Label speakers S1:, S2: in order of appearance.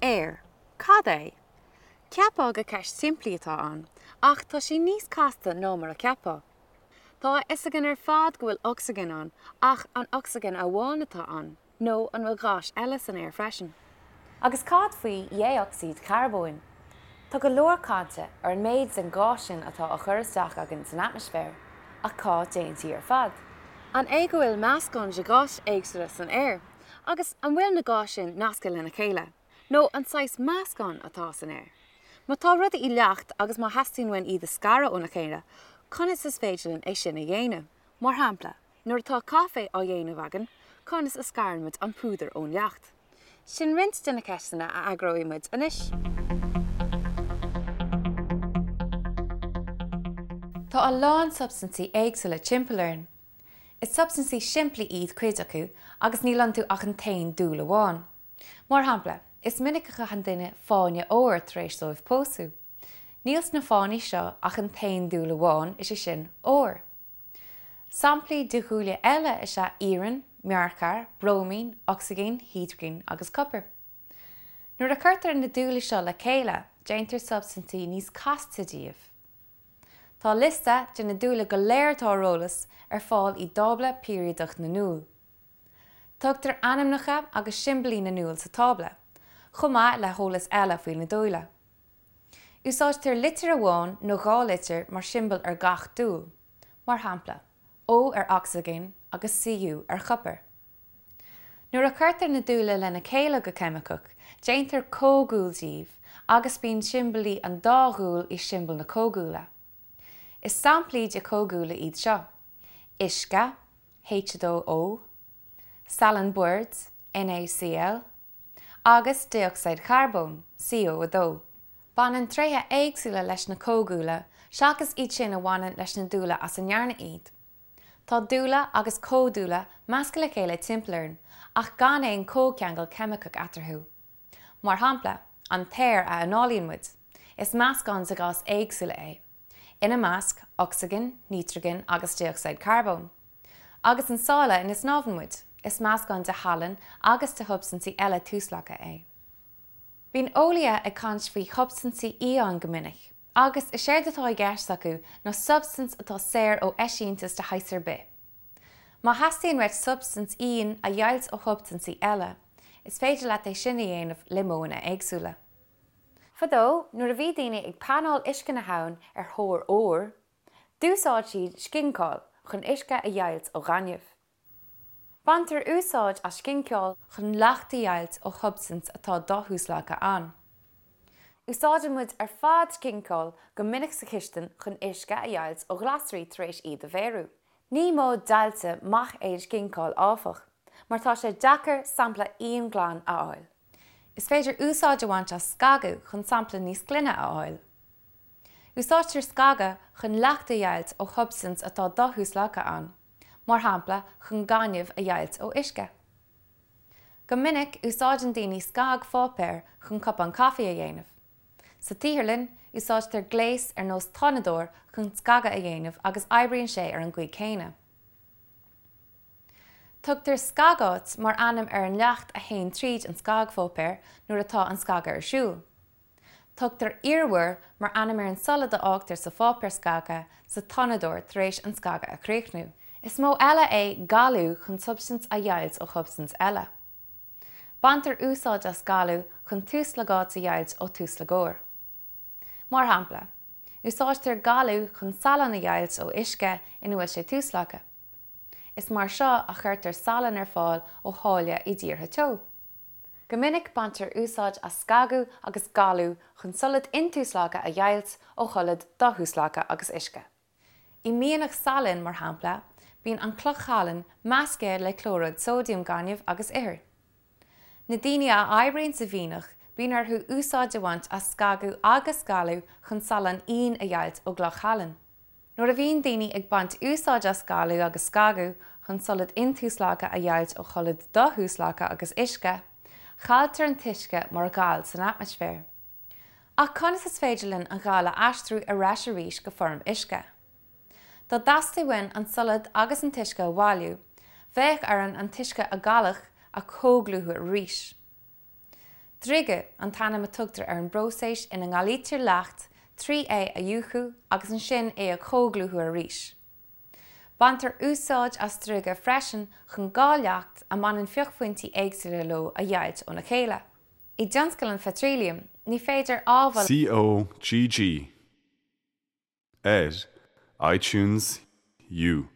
S1: Aer. Cad é? Cheapfá gur ceist simplí atá ann, ach tá sí níos casta ná mar a cheapfá. Tá a fhios againn ar fad go bhfuil ocsaigin ann, ach an ocsaigin amháin atá ann, nó an bhfuil gáis eile san aer freisin?
S2: Agus cad faoi dhé-ocsaíd charbóin? Tá go leor cainte ar an méid den ghás sin atá á chur isteach againn san atmaisféar, ach cá dtéann sí ar fad?
S1: An é go bhfuil meascán de gháis éagsúla san aer? Agus an bhfuil na gáis sin nasctha lena chéile? Nó an saghas meascán atá san aer? Má tá rudaí i leacht agus má theastaíonn uainn iad a scaradh óna chéile, conas is féidir linn é sin a dhéanamh? Mar shampla, nuair atá caife á dhéanamh againn, conas a scarann muid an púdar ón leacht? Sin roinnt de na ceisteanna a fhreagróidh muid anois.
S2: Tá a lán substaintí éagsúla timpeall orainn. Is substaintí simplí iad cuid acu agus níl iontu ach an t-aon dúil amháin. Mar shampla, is minic a chaitheann duine fáinne óir tar éis dóibh pósadh. Níl sna fáinní seo ach an t-aon dúil amháin, is é sin, ór. Samplaí de dhúile eile is ea iarann, mearcair, bróimín, ocsaigin, hidrigin agus copar. Nuair a chuirtear na dúile seo le chéile, déantar substaintí níos casta díobh. Tá liosta de na dúile go léir atá ar eolas ar fáil i dTábla Peiriadach na nDúl. Tugtar ainmneacha agus siombailí na ndúl sa tábla, chomh maith le heolas eile faoi na dúile. Úsáidtear litir amháin nó dhá litir mar siombail ar gach dúil, mar shampla, O ar ocsaigin agus Cu ar chopar. Nuair a chuirtear na dúile lena chéile go ceimiceach, déantar comhdhúil díobh agus bíonn siombailí an dá dhúil i siombail na comhdhúile. Is samplaí de chomhdhúile iad seo, uisce, H2O, salann boird, NaCl, agus dé-ocsaíd charbóin, CO2. Baineann tréithe éagsúla leis na comhdhúile seachas iad sin a bhaineann leis na dúile as a ndearnadh iad. Tá dúile agus comhdhúile measctha le chéile timpeall orainn ach gan aon chomhcheangal ceimiceach eatarthu. Mar shampla, an t-aer a análaíonn muid, is meascán de gháis éagsúla é, ina measc, ocsaigin, nítrigin agus dé-ocsaíd charbóin. Agus an sáile ina snámhann muid, is meascán de shalann agus de shubstaintí eile tuaslagtha é. Bíonn eolaithe ag caint faoi shubstaintí íon go minic, agus is éard atá i gceist acu ná substaint atá saor ó eisíontas de shaghas ar bith. Má theastaíonn uait substaint íon a dheighilt ó shubstaintí eile, is féidir leat é sin a dhéanamh le modhanna éagsúla. Fadó, nuair a bhí daoine ag panáil uisce na habhann ar thóir óir, d'úsáid siad scinceáil chun uisce a dheighilt ó ghaineamh. Baintear úsáid as scinceáil chun leacht a dheighilt ó shubstaint atá dothuaslagtha ann. Úsáideann muid ar fad scinceáil go minic sa chistin chun uisce a dheighilt ó ghlasraí tar éis iad a bheiriú. Ní modh deighilte maith é an scinceáil áfach, mar tá sé deacair sampla íonghlan a fháil. Is féidir úsáid a bhaint as scagadh chun sampla níos glaine a fháil. Úsáidtear scagadh chun leacht a dheighilt ó shubstaint atá dothuaslagtha ann. mar shampla chun gaineamh a dheighilt ó uisce. Go minic, úsáideann daoine scagpháipéar chun cupán caife a dhéanamh. Sa tsaotharlann, úsáidtear gléas ar nós tonnadóir chun scagadh a dhéanamh agus oibríonn sé ar an gcaoi chéanna. Tugtar scagáit mar ainm ar an leacht a théann tríd an scagpháipéar nuair atá an scagadh ar siúl. Tugtar iarmhar mar ainm ar an solad a fhágtar sa pháipéar scagtha sa tonnadóir tar éis an scagadh a chríochnú. Is modh eile é galú chun substaint a dheighilt ó shubstaint eile. Baintear úsáid as galú chun tuaslagáit a dheighilt ó tuaslagóir. Mar shampla, úsáidtear galú chun salann a dheighilt ó uisce ina bhfuil sé tuaslagtha. Is mar seo a chuirtear salann ar fáil ó sháile i dtíortha teo. Go minic baintear úsáid as scagadh agus galú chun solad intuaslagtha a dheighilt ó sholad dothuaslagtha agus uisce. I mianach salainn, mar shampla, bíonn an chloch shalainn measctha le clóiríd sóidiam, gaineamh agus ithir. Na daoine a oibríonn sa mhianach, bíonn orthu úsáid a bhaint as scagadh agus galú chun salann íon a dheighilt ó gcloch shalainn. Nuair a bhíonn daoine ag baint úsáid as galú agus scagadh chun solad intuaslagtha a dheighilt ó sholad dothuaslagtha agus uisce, cailltear an t-uisce mar ghal san atmaisféar. Ach conas is féidir linn an gal a aistriú ar ais arís go foirm uisce? Dá dteastaigh uainn an solad agus an t-uisce a bhailiú, bheadh orainn an t-uisce a galadh a chomhdhlúthú arís. Driogadh an t-ainm a tugtar ar an bpróiseas ina ngalaítear leacht trí é a fhiuchadh agus ansin é a chomhdhlúthú arís. Baintear úsáid as driogadh freisin chun 2 leacht a mbaineann fiuchphointí éagsúla leo a dheighilt óna chéile. I dtionscal an pheitriliam, ní féidir ábhail.
S3: C O G G ar iTunes U.